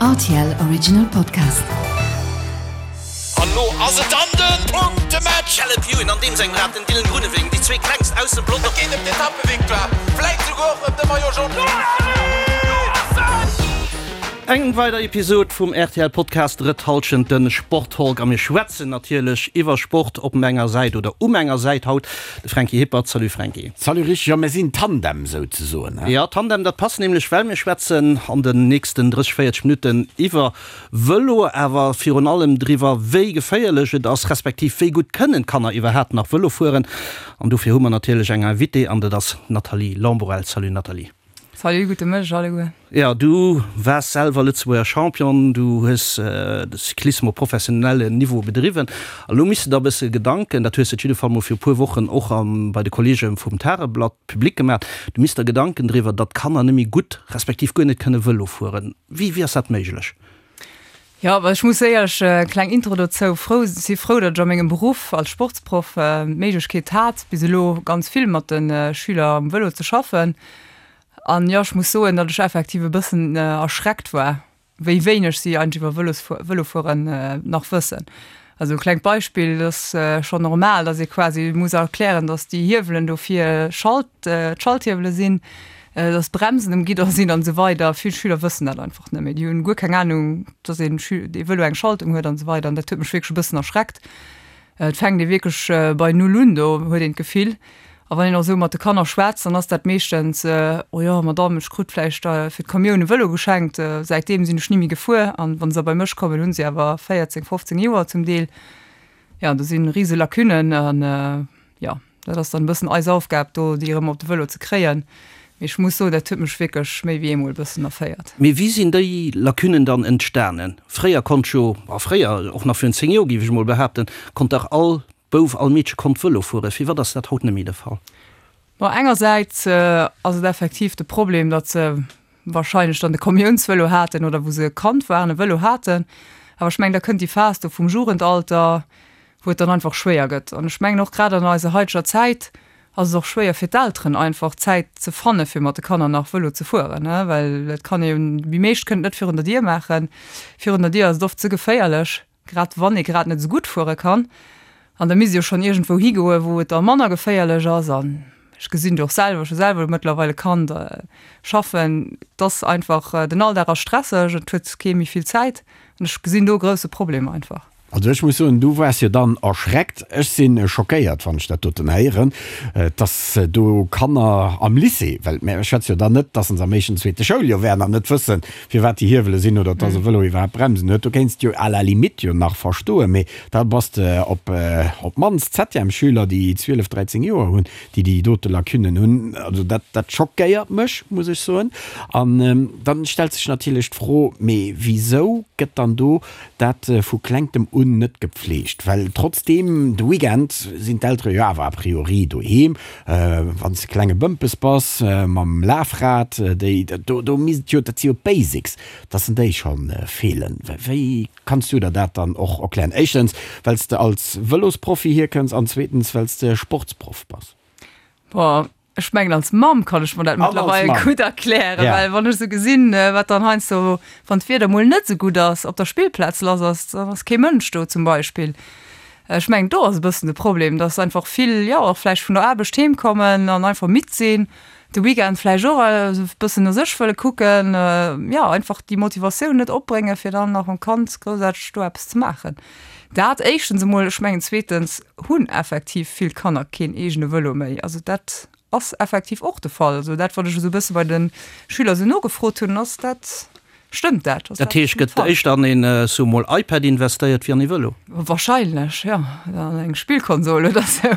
Rtl Original Podcast. An lo ass et dann den Punktematch! Caleb Ewan an deem sengem Rad, den Dylan Groenewegen, déi zwee klengst aus dem Pelotong. Et geet ëm d'Etappevictoire, vläit souguer och ëm de Maillot Jaune. Eng weider Episod vum rtl Podcast Drëtt Halschent, den Sporttalk a mir schwätzen natierlech iwwer Sport op menger Säit oder u menger Säit haut De Franky Hippert, Salut Franky. Salut Rich, jo mir sinn Tandem souzesoen, he? Jo, Tandem, dat passt nämlech, well mir schwätzen an den nächsten 30, 40 Minutten iwwer Vëlo, awer virun allem driwwer, wéi geféierlech et ass, respektiv wéi gutt kënnen d'Kanner iwwerhaapt nach Vëlo fueren. An dofir hu mer natierlech eng Invitée an dat ass d'Nathalie Lamborelle. Salut Nathalie. Salut, gudde Mëtteg alleguer. Jo, du waars selwer Lëtzebuerger Champion, du hues de Cyclisme op professionellen Niveau bedriwwen. A lo misst de der e bësse Gedanken, dat hues de op jidde Fall mol viru puer Wochen och bei de Kolleege vum Tageblatt public gemaach, du misst der Gedanken driwwer, datt d'Kanner net méi gutt, respektiv guer net kënne Vëlo fueren. Wéi, wéi ass dat méiglech? Jo, ech muss éierlech, kleng Intro dozou, frou, si frou, datt ech a mengem Beruff als Sportsproff d'Méiglechkeet hat, bis elo ganz vill mat de Schüler um Vëlo ze schaffen. An jo, ech muss soen, datt ech effektiv e bëssen erschreckt war, wéi wéineg si eigentlech iwwer Vëlosfuer, Vëlofueren nach wëssen. Also e klengt Beispill, et ass schonn normal, datt ee quasi muss erklären, datt déi Hiewelen do fir Schalt, d'Schalthiewele sinn, datt d'Bremsen um Gidder sinn an esou weider. Vill Schüler wëssen dat einfach net méi. Déi hunn guer keng Anung, datt een dee Vëlo eng Schaltung huet an esou weider. An dat huet mech wierklech e bëssen erschreckt. Et fänkt ee wierklech bei Null un, do huet een d'Gefill. A wann een och esou mat de Kanner schwätzt, dann ass dat meeschtens, Oh jo, Madamm, ech krut vläicht fir d'Kommioun e Vëlo geschenkt, säitdeem sinn ech ni méi gefuer. An wa se da bei mech kommen, hu se awer 14, 15 Joer zum Deel. Jo, do si rise Lacunnen an jo, dat ass dann e bëssen eis Aufgab do, déi erëm op de Vëlo ze kréien. Mee ech muss soen, dat huet mech wierklech méi wéi eemol e bëssen erféiert. Mee wéi sinn déi Lacunnen dann entstanen? Fréier konnt jo, a fréier, och nach virun 10 Joer géif ech emol behaapten, konnt dach all Bouf, all Meedche konnt Vëlo fueren. Firwat ass dat haut net méi de Fall? Bon, engersäits ass et effektiv de Problem, datt se wahrscheinlech dann de Kommiounsvëlo haten oder wou se Kand waren e Vëlo haten. Awer ech mengen, da kënnt déi Phas do vum Jugendalter, wou et dann einfach schwéier gëtt. An ech mengen och grad an eiser haiteger Zäit ass et och schwéier fir d'Elteren einfach Zäit ze fanne fir mat de Kanner nach Vëlo ze fueren, well et kann ee jo, déi meescht kënnen et net virun der Dier maachen. Virun der Dier ass et oft ze geféierlech, grad wann ee grad net esou gutt fuere kann. An da misst ee jo schonn iergendwou higoe wou et da manner geféierlech ass. An ech gesinn et och selwer, ech hu selwer mëttlerweil e Kand, schaffen, et ass einfach, den Alldag ass stresseg, et huet kee méi vill Zäit an ech gesinn do e grousse Problem einfach. Also ech muss soen, du waars jo dann erschreckt. Ech si schockéiert, wann ech dat doten héieren, dass do Kanner am Lycée, well mir schwätze jo dann net, dass se am éischten, zweete Schouljoer wären an net wëssen, firwat déi Hiewele sinn oder dass e Vëlo iwwerhaapt Bremsen huet. Do kéints de jo à la limite jo nach verstoen, mee da bass de op op d'mannst Septièmesschüler, déi 12, 13 Joer hunn, déi déi dote Lacunnen hunn. Also dat, dat schockéiert mech, muss ech soen. An dann stellt sech natierlech d'Fro, mee wisou gëtt dann do Dat vu klengtem un net gepflegt, well trotzdeem de Weekend sinn d'Eltere jo awer a priori doheem. Wann s de klenge Bëmpes bass mam Lafrad, déi do do misst jo, dat si jo d'Basics, dass en déi scho feelen. Wéi kanns du der dat dann och erklären? Éischtens, well s de als Vëlosprofi hierkënns an zweetens, well s de Sportsproff bass. Boah, Ech mengen als Mamm kann ech mer dat mëttlerweil gutt erklären, well wann ech sou gesinn, wat dann heiansdo, wann d'Wieder mol net sou gutt ass, op der Spillplaz lass ass, dann ass kee Mënsch do zum Beispill. Ech mengen do ass e bëssen de Problem, dass einfach vill, jo och vläicht vun der Aarbecht heem kommen an einfach midd sinn, de Weekend vläicht och e bëssen no sech wëlle kucken, jo einfach déi Motivatioun net opbréngen, fir dann nach mam Kand groussaarteg do eppes ze maachen. Dat éischtens emol. Ech mengen zweetens hunn effektiv vill Kanner keen eegene Vëlo méi. Also dat ass effektiv och de Fall. Also dat, wat ech esou e bësse bei de Schüler esou nogefrot hunn, ass dat, stëmmt dat? Ass Dat heescht, gëtt éischter an een, soe mol, iPad investéiert wéi an ee Vëlo? Wahrscheinlech, jo. An eng Spillkonsol oder esou.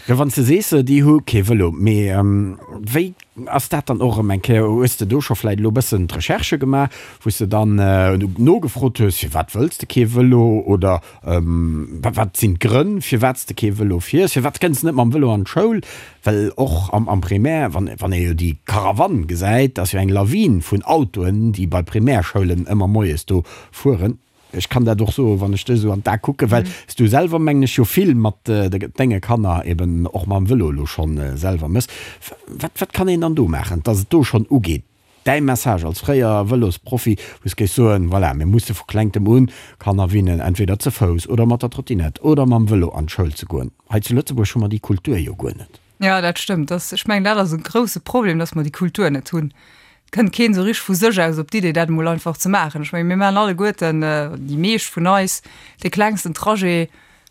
Jo, wann s de sees, déi hu kee Vëlo, mee wéi Ass dat dann och erëm eng Kéier, hues de do scho vläit elo e bëssen d'Recherche gemaach, wou s de dann nogefrot hues, firwat wëlls de kee Vëlo oder wat sinn d'Grënn, firwat s de kee Vëlo fiers, firwat kënns de net mam Vëlo an d'Schoul? Well och am Primaire, wann ee jo déi Karawann gesäit, ass jo eng Lawin vun Autoen, déi bei Primärschoulen ëmmer moies do fueren. Ech kann dat och soen, wann ech dech esou an d'A kucken, well s du selwer, mengen ech, jo vill mat denge Kanner eben och mam Vëlo elo schonn selwer mëss. Wat, wat kann een dann do maachen, dass et do schonn ugeet? däi Message als fréier Vëlosprofi, wou s géifs soen, voilà, mir musse vu klengtem un Kanner winnen, entweder ze Fouss oder mat der Trottinett oder mam Vëlo an d'Schoul ze goen. Hei zu Lëtzebuerg hu mer déi Kultur jo guer net. Jo, dat stëmmt. Dass, ech mengen, dat ass e grousse Problem, dass mer déi Kultur net hunn. Et kënnt keen esou richteg vu sech aus op d'Idee, dat emol einfach ze maachen. Ech mengen, mir maachen alleguerten, déi meescht vun eis, dee klengsten Trajet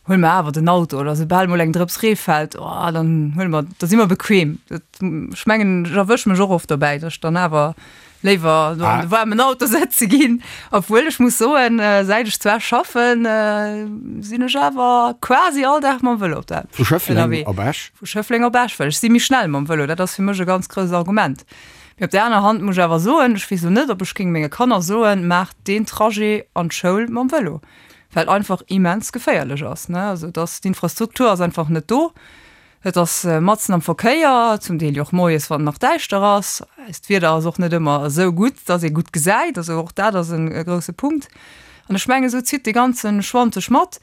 huele mer awer den Auto oder soubal mol eng Drëps Ree fält, oh, dann huele mer, da si mer bequem. Dat, ech mengen, ech erwësch mech och oft dobäi, dass ech dann awer léiwer do an de waarmen Auto sëtze ginn. Obwuel ech muss soen, säit ech zwar schaffen, sinn ech awer quasi all Dag mam Vëlo op der Vu Schëffleng op Esch? Vu Schëffleng op Esch, well ech si méi schnell mam Vëlo. Dat ass fir mech e ganz grousst Argument. Mee op där aner Hand muss ech awer soen, ech weess elo net, ob ech géing menge Kanner soen, maacht deen Trajet an d'Schoul mam Vëlo. Well einfach immens geféierlech ass, ne. Also et ass, d'Infrastruktur ass einfach net do. Et ass matzen am Verkéier, zum Deel jo och moies, wann et nach däischter ass. Eist Wieder ass och net ëmmer esou gutt, dass ee gutt gesäit. Also och dat ass e grousse Punkt. An ech mengen, esou zitt dee ganze Schwand sech mat.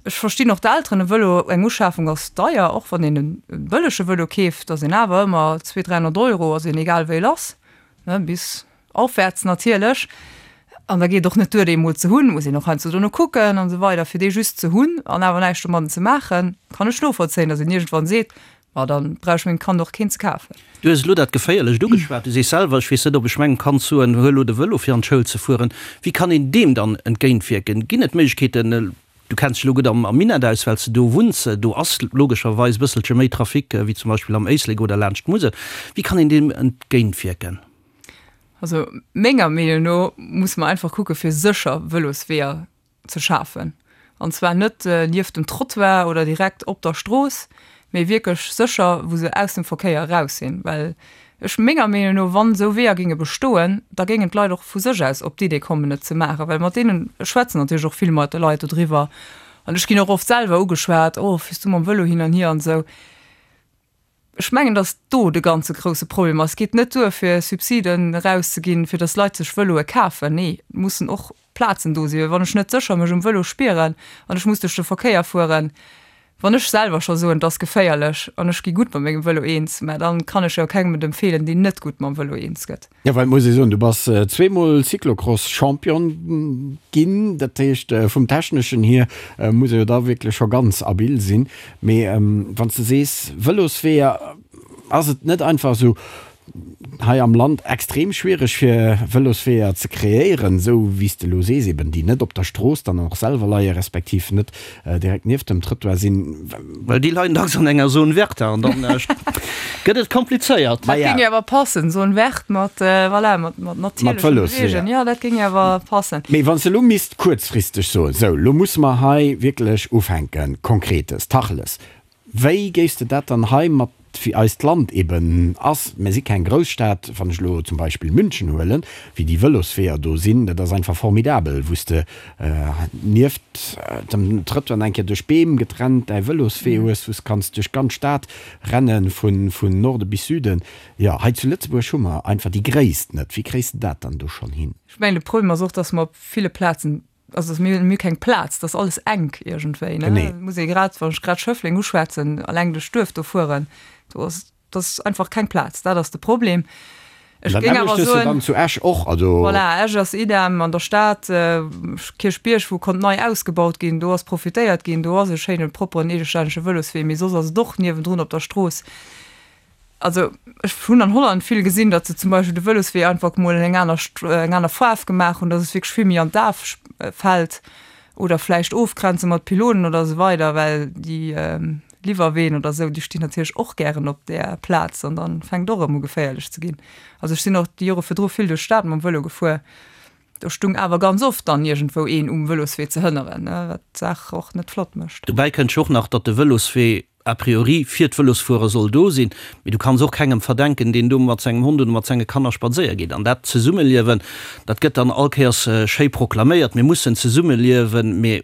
Ech verstinn och d'Elteren, e Vëlo, eng Uschafung ass deier, och wann een e bëllege Vëlo keeft, ass een awer ëmmer 200, 300 Euro ass een egal wéi lass, ne, bis Aufwärts natierlech. An da geet et och net duer, dee emol ze hunn, muss een och heiansdo dono kucken an esou weider. Fir dee just ze hunn an awer näischt domadden ze maachen, kann ech novollzéien, datt een iergendwann seet, Ma dann brauch ech mengem Kand och keen ze kafen. Du hues elo dat Geféierlecht ugeschwat. Du sees selwer, ech weess net, ob ech mengem Kand soen, huel elo de Vëlo fir an d'Schoul ze fueren. Wéi kann een deem dann entgéintwierken? Ginn et Méiglechkeeten, du kenns dech elo gutt am Minett aus, well s de do wunns, do ass logescherweis e bësselche méi Trafic wéi zum Beispill am Éislek oder laanscht d'Musel. Wéi kann een deem entgéintwierken? Also menger Meenung no musse mer einfach kucke fir sécher Vëlosweeër ze schafen. An zwar net nieft dem Trottoir oder direkt op der Strooss, mee wierklech sécher, wou se aus dem Verkéier eraus sinn. Well ech menger Meenung no, wann esou Weeër géinge bestoen, da géingen d'Leit och vu sech aus op d'Idee kommen et ze maachen. Well mat deenen, ech schwätzen natierlech och vill mat de Leit dodriwwer an ech ginn och oft selwer ugeschwat, oh fiers du mam Vëlo hin an hier an esou. Ech mengen, datt do de ganze grousse Problem ass. Et geet net duer, fir Subsiden erauszeginn, fir datt Leit sech Vëloe kafen. Nee, et mussen och Plazen do sinn. Well wann ech net sécher mech um Vëlo spieren an ech muss duerch de Verkéier fueren, wann ech selwer scho soen, et ass geféierlech an ech gi gutt mat mengem Vëlo eens, mä dann kann ech jo kengem et empfeelen, deen net gutt mam Vëlo eens gëtt. Jo, well et muss ee soen, du bass zweemol Cyclocross-Champion ginn. Dat heescht, vum Techneschen hier muss ee jo da wierklech scho ganz abil sinn. Mee wann s de sees Vëlosweeër, ass et net einfach esou hei am Land extrem schwiereg fir Vëlosweeër ze kreéieren, esou wéi s de elo sees, eben déi net op der Strooss dann och selwer leie respektiv net direkt nieft dem Trëttoir sinn. Well déi leien dacks an enger Zone verte an dann gëtt et komplizéiert. Dat géing jo awer passen, Zone verte mat, voilà, mat natierlechen Beweegen. Jo, dat géing jo awer passen. Mee wann s de elo misst kuerzfristeg soen, sou, elo musse mer hei wierklech ufänken, Konkretes, Tacheles, Wéi géifs de dat dann hei mat, wéi eist Land eben ass, mir si keng Grousstad, wann ech elo zum Beispill München huelen, wéi déi Vëlosweeër do sinn, dat ass einfach formidabel, wou s de nieft dem Trëttoir eng Kéier duerch Beem getrennt däi Vëloswee hues, wou s kanns duerch d'ganz Stad renne vun Norde bis Süden. Jo, hei zu Lëtzebuerg hu mer einfach déi Gréisst net. Wéi kréis de dat dann do schonn hin? Ech mengen, de Problem ass och, dass mer op ville Plazen Also mir hunn keng Plaz, dat ass alles enk iergendwéi, ne? Genee. Muss ee grad, wann ech grad Schëffleng uschwätzen, alleng duerch d'Duerf do fueren, do ass, dat ass einfach keng Plaz, dat ass de Problem. Ech géing awer soen. Dann zu Esch och, also. Voilà, Esch ass idem, an der Stad, Kierchbierg, wou konnt nei ausgebaut ginn, do ass profitéiert ginn, do ass e schéinen, propperen, eegestännege Vëloswee, mee soss ass et och niewendrun op der Strooss. Also ech hunn an Holland vill gesinn, datt se zum Beispill de Vëloswee einfach mol eng aner eng aner Faarf gemaach hunn, datt et wierklech vill méi an d'A fält oder vläicht ofgrenze mat Pylonen oder esou weider, well déi Liwwerween oder esou, déi stinn natierlech och gären op där Plaz an dann fänkt och erëm u geféierlech ze ginn. Also ech sinn och déi Jore virdru vill duerch d'Stad mam Vëlo gefuer, do stung awer ganz oft dann iergendwou een um Vëloswee ze hënneren, wat d'Saach och net flott mécht. Dobäi kënnt jo och nach, datt de Vëloswee a priori fir d'Vëlosfuerer soll do sinn, mee du kanns och kengem verdenken, deen do mat sengem Hond oder mat senge Kanner spadséier geet. An dat Zesummeliewen, dat gëtt dann all Kéiers schéi proklaméiert, mir mussen zesummeliewen, mee,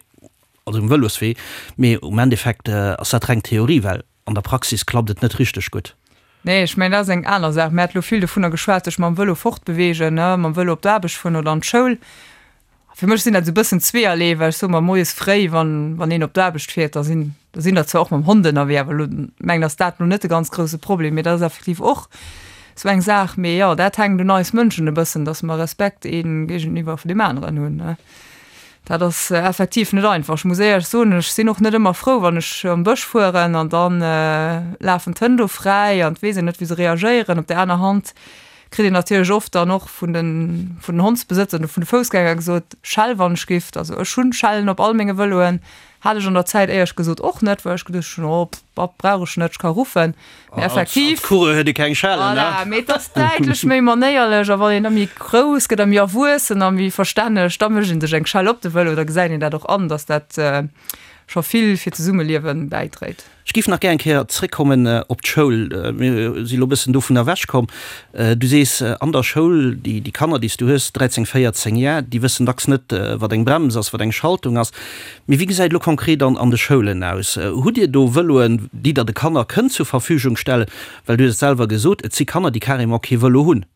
also um Vëloswee, mee um Endeffekt ass dat reng Theorie, well an der Praxis klappt et net richteg gutt. Nee, ech mengen, dat ass eng aner Saach. Mir hate lo vill dovunner geschwat, sech mam Vëlo fortbeweegen, ne, mam Vëlo op d'Aarbecht fueren oder an d'Schoul. Fir mech sinn dat esou e bëssen zweeërlee, well ech soe mer, moies fréi, wann, wann een op d'Aarbecht fiert, da sinn, da sinn der zwar och mam Hond ënnerwee, awer elo mengen ass dat elo net de ganz grousse Problem, mee dat ass effektiv och. Sou eng Saach. Mee jo, dat hänkt un eis Mënschen e bëssen, dass mer Respekt ee géigeniwwer vun deem aneren hunn. Dat ass effektiv net einfach. Ech muss éierlech soen, ech sinn och net ëmmer frou, wann ech am Bësch fueren an da lafen d'Hënn do fräi an et weess een net, wéi se reagéieren. Op där aner Hand kritt een natierlech oft dann och vun den, vun den Hondsbesëtzer oder vun de Foussgänger gesot, Schell wann ech giff. Also ech hunn Schellen op all menge Vëloen. Hat ech an der Zäit éierlech gesot och net, well ech geduecht hunn, oh pff, brauch ech net, ech ka ruffen. Mee effektiv. Als Coureur huet ee keng Schellen, ne? Voilà, mee et ass däitlech méi manéierlech a wann een da méi grouss gëtt a méi erwuessen a méi verstänneg, da mécht een sech eng Schell op de Vëlo, da gesäit een dat och an, dass dat scho vill fir d'Zesummeliewe bäidréit. Ech géif nach gär eng Kéier zréckkommen op d'Schoul. Mir si lo e bëssen dovun ewechkomm. Du sees, an der Schoul, déi Kanner, déi s du hues, 13, 14 Jar, déi wëssen dacks net, wat eng Brems ass, wat eng Schaltung ass. Mee wéi gesäit elo konkret an de Schoulen aus? Hutt Dir do Vëloen, déi Der de Kanner kënnt zur Verfügung stellen? Well du hues et selwer gesot, et si Kanner, déi carrément kee Vëlo hunn.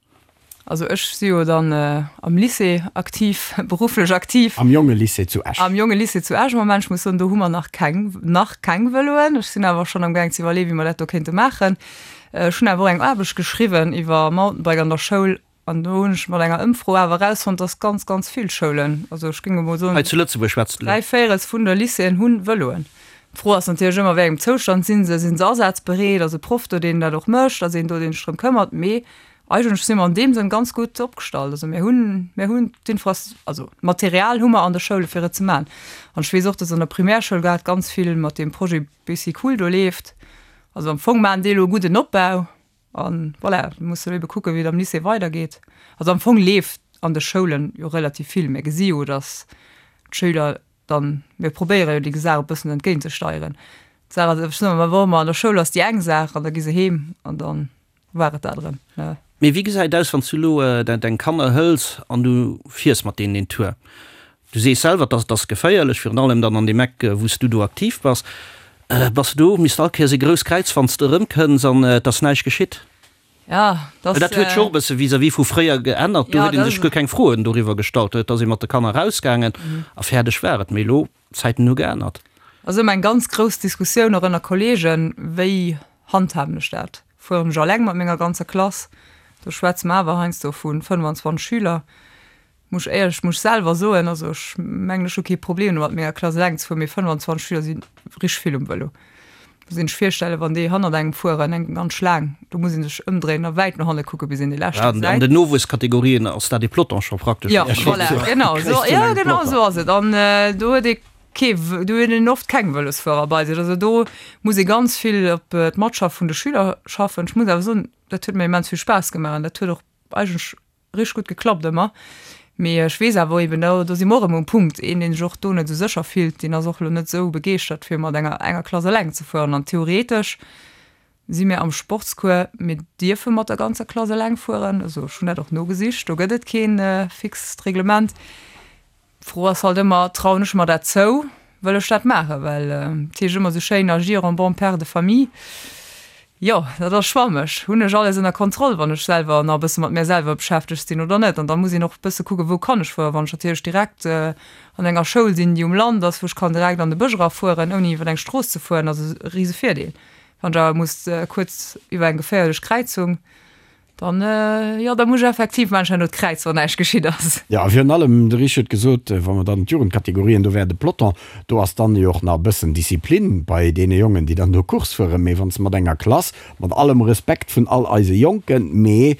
Also ech si jo dann am Lycée aktiv, berufflech aktiv. Am Jongelycée zu Esch. Am Jongelycée zu Esch am Moment. Ech muss soen, do hu mer nach keng, nach keng Vëloen. Ech sinn awer schonn amgaang ze iwwerleeën, wéi mer dat do kéinte maachen. Ech hunn awer och eng Aarbecht geschriwwen iwwer Mountainbike an der Schoul an do hunn ech mat enger Ëmfro awer erausfonnt, dass ganz, ganz vill Schoulen, also ech géing emol soen, Hei zu Lëtzebuerg schwätzt de elo? dräivéierels vun de Lycéeën hu Vëloen. D'Fro ass natierlech ëmmer, wéi engem Zoustand si se? Sinn se asazbereet? Ass e Proff do, deen dat och mécht? Ass een do, deen sech drëm këmmert? Mee Eigentlech si mer an deem Sënn ganz gutt opgestallt. Also mir hunn, mir hunn d'Infras-, also d'Material hu mer an de Schoule fir et ze maachen. An ech weess och, dass an der Primärschoul grad ganz vill mat deem Projet Bicycool do leeft. Also am Fong maachen déi elo e gudden Opbau a voilà, mir musse elo ebe kucken, wéi et am Lycée weidergeet. Also am Fong leeft an de Schoulen jo relativ vill. Mir gesi jo, dass d'Schüler dann, mir probéiere jo déi Saach e bëssen entgéintzesteieren. D'Saach ass, ech soen ëmmer, wa mer an der Schoul ass déi eng Saach an da gi se heem an dann war et dat erëm, ne. Mee wéi gesäit et aus, wann s du elo deng Kanner hëls an du fiers mat deenen een Tour? Du sees selwer, dass et ass geféierlech, virun allem dann an deem Eck, wou s du do aktiv bass. Bass du do, misst all Kéiers e grousst Kräiz, wann s de erëmkënns an et ass näischt geschitt? Ja, dass. Well dat huet scho och e bësse vis-à-vis vu fréier geännert. Do huet ee sech guer keng Froen doriwwer gestallt. Do ass ee mat de Kanner erausgaangen a fäerdeg war et. Mee elo, d'Zäiten hu geännert. Ass ëmmer eng ganz grouss Diskussioun och ënner Kolleegen, wéi handhaben ech dat? Fueren ech alleng mat menger ganzer Klass? Do schwätze mer awer heiansdo vu 25 Schüler. Muss ech éierlech, muss ech selwer soen, also ech mengen ech hu kee Problem domat mat menger Klass eleng ze fueren, mee 25 Schüler si richteg vill um Vëlo. Muss een sech virstellen, wann déi hannert engem fueren, eng ganz Schlaang, do muss een sech ëmdréinen a wäit no hanne kucke bis een déi lescht gesäit. An den Nowuesskategorien ass dat ee Peloton scho praktesch. Jo, voilà, genau esou, jo genau esou ass et. An do huet ee kee, do huet een oft keng Vëlosfuerer bei sech. Also do muss ee ganz vill op d'Matschaft vun de Schüler schaffen. Ech muss awer soen, dat huet mir immens vill Spaass gemaach an dat huet och eigentlech Richteg gutt geklappt ëmmer. Mee ech weess awer eben, do do si mer och erëm um Punkt, een deen sech och do net esou sécher fillt, deen ass och elo net esou begeeschtert fir mat enger enger Klass eleng ze fueren. An theoretesch si mir am Sportscours, mir dierfe mat der ganzer Klass eleng fueren, also ech hunn dat och nogesicht, do gëtt et keen fixt Reglement. D'Fro ass halt ëmmer, trauen ech mer dat zou, wëll ech dat maachen? Well et heescht ëmmer esou schéin, agir en bon père de famille. Jo, dat ass schwammeg. Hunn ech alles ënner Kontroll, wann ech selwer nach e bësse mat mär selwer beschäftegt sinn oder net? An da muss een och e bësse kucken, wou kann ech fueren? Wann ech natierlech direkt an enger Schoul sinn, déi um Land ass, wou ech kann direkt an de Bësch erafueren, ouni iwwer eng Strooss ze fueren, ass e rise Virdeel. Wann ech awer muss kuerz iwwer eng geféierlech Kräizung, Dann, jo, da muss ech effektiv maachen, herno d'Kräiz, wann näischt geschitt ass. Jo, a virun allem, de Rich huet gesot, wa mer dann d'Jugendkategorien, do wär de Peloton, do ass dann jo och nach e bëssen Disziplin bei deene Jongen, déi dann do Course fueren. Mee wann s de mat enger Klass, mat allem Respekt vun all eise Jonken, mee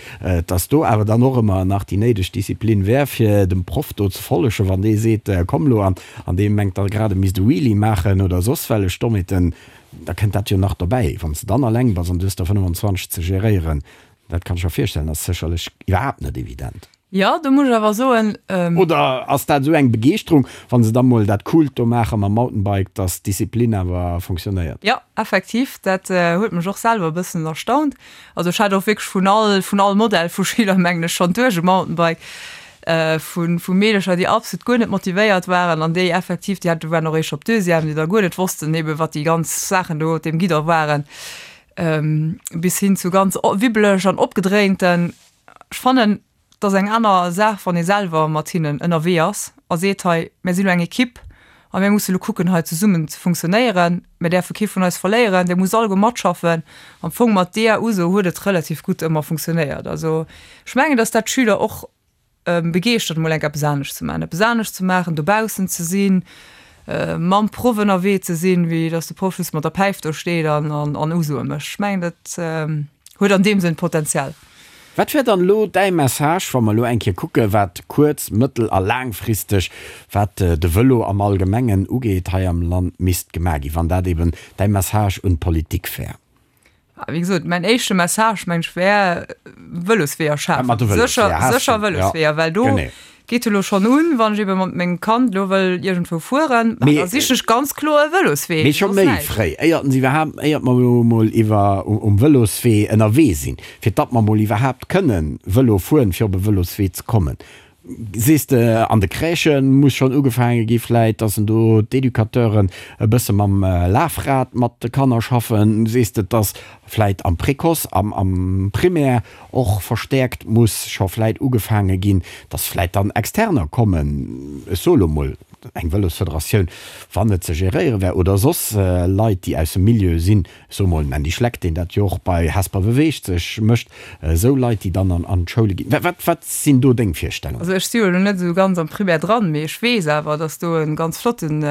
dass do awer dann och ëmmer nach déi néideg Disziplin wär, fir dem Proff do ze follegen, wann dee seet, komm lo, an dee mengt da grad, e misst e Wheelie maachen oder soss wellech Dommheeten, Da kënnt dat jo nach dobäi, wann s de dann alleng bass an du hues der 25 ze geréieren, dat kann ech mer virstellen, ass sécherlech iwwerhaapt net evident. Jo, do muss ech awer soen. Oder ass dat esou eng Begeeschterung, wa se da mol dat Coolt do maache mam Mountainbike, dass d'Disziplin awer fonctionnéiert? Jo, effektiv, dat huet mech och selwer e bëssen erstaunt. Also ech hat och wierklech vun all, vun all Modell vu Schüler, mengen ech, schonn duerch e Mountainbike. Vu vu Meedercher, déi absolut guer net motivéiert waren an déi effektiv, déi hate waren och eréischt op Deuxième, déi da guer net wossten ebe wat déi ganz Saachen do op deem Guidon waren, bis hin zu ganz wibbeleg an opgedréinten. Ech fannen, et ass eng aner Saach, wann ee selwer mat hinnen ënnerwee ass a seet, hei, mir sinn elo eng Ekipp. A mir musse lo kucken, hei zesummen ze funktionéieren. Mir däerfe kee vun eis verléieren, Dir musst alleguer matschaffen. Am Fong mat deeër Uso huet et relativ gutt ëmmer funktionéiert. Also ech mengen, datt dat d'Schüler och begeeschtert, emol enk eppes anescht ze maachen, eppes anescht ze maachen, dobaussen ze sinn, mam Proff ënnerwee ze sinn, wéi datt de Proff just mat der Päif do steet an Usoe mécht. Ech mengen, dat huet an deem Sënn Potenzial. Wat wär dann elo däi Message, wa mer elo eng Kéier kucke wat kuerz-, mëttel a laangfristeg, wat de Vëlo am Allgemengen ugeet, hei am Land misst gemaach ginn, wann dat eben däi Message un d'Politik wär? Wéi gesot, mäin éischte Message, meng ech, wär, Vëlosweeër schafen, sécher, sécher Vëlosweeër, well do Geet elo schonn un, wann ech ebe mat mengem Kand elo wëll iergendwou fueren, da sichen ech ganz kloer e Vëloswee. Mee scho méi fréi, éiert en iwwerhaapt, éiert mer elo emol iwwer um Vëloswee ënnerwee sinn, fir datt mer emol iwwerhaapt kënnen Vëlo fueren, fir op e Vëloswee ze kommen. Sees de, an de Crèchë muss schonn ugefaange gi vläit, datt en do d'Educateuren e bësse mam Lafrad mat de Kanner schaffen? Sees de, datt vläit am Précoce, am am Primaire och verstäerkt muss scho vläit ugefaange ginn, dass vläit dann Externer kommen, ech soe lo mol eng Vëlosfederatioun, wann et ze geréiere wär, oder soss Leit, déi aus dem Milieu sinn, ech soe mol en Andy Schleck, deen dat jo och bei Hesper beweegt sech mécht, esou Leit, déi dann an d'Schoule ginn. Wat, wat sinn do deng Virstellungen? Also ech si jo elo net esou ganz am Primaire dran, mee ech weess awer, dass do e ganz flotten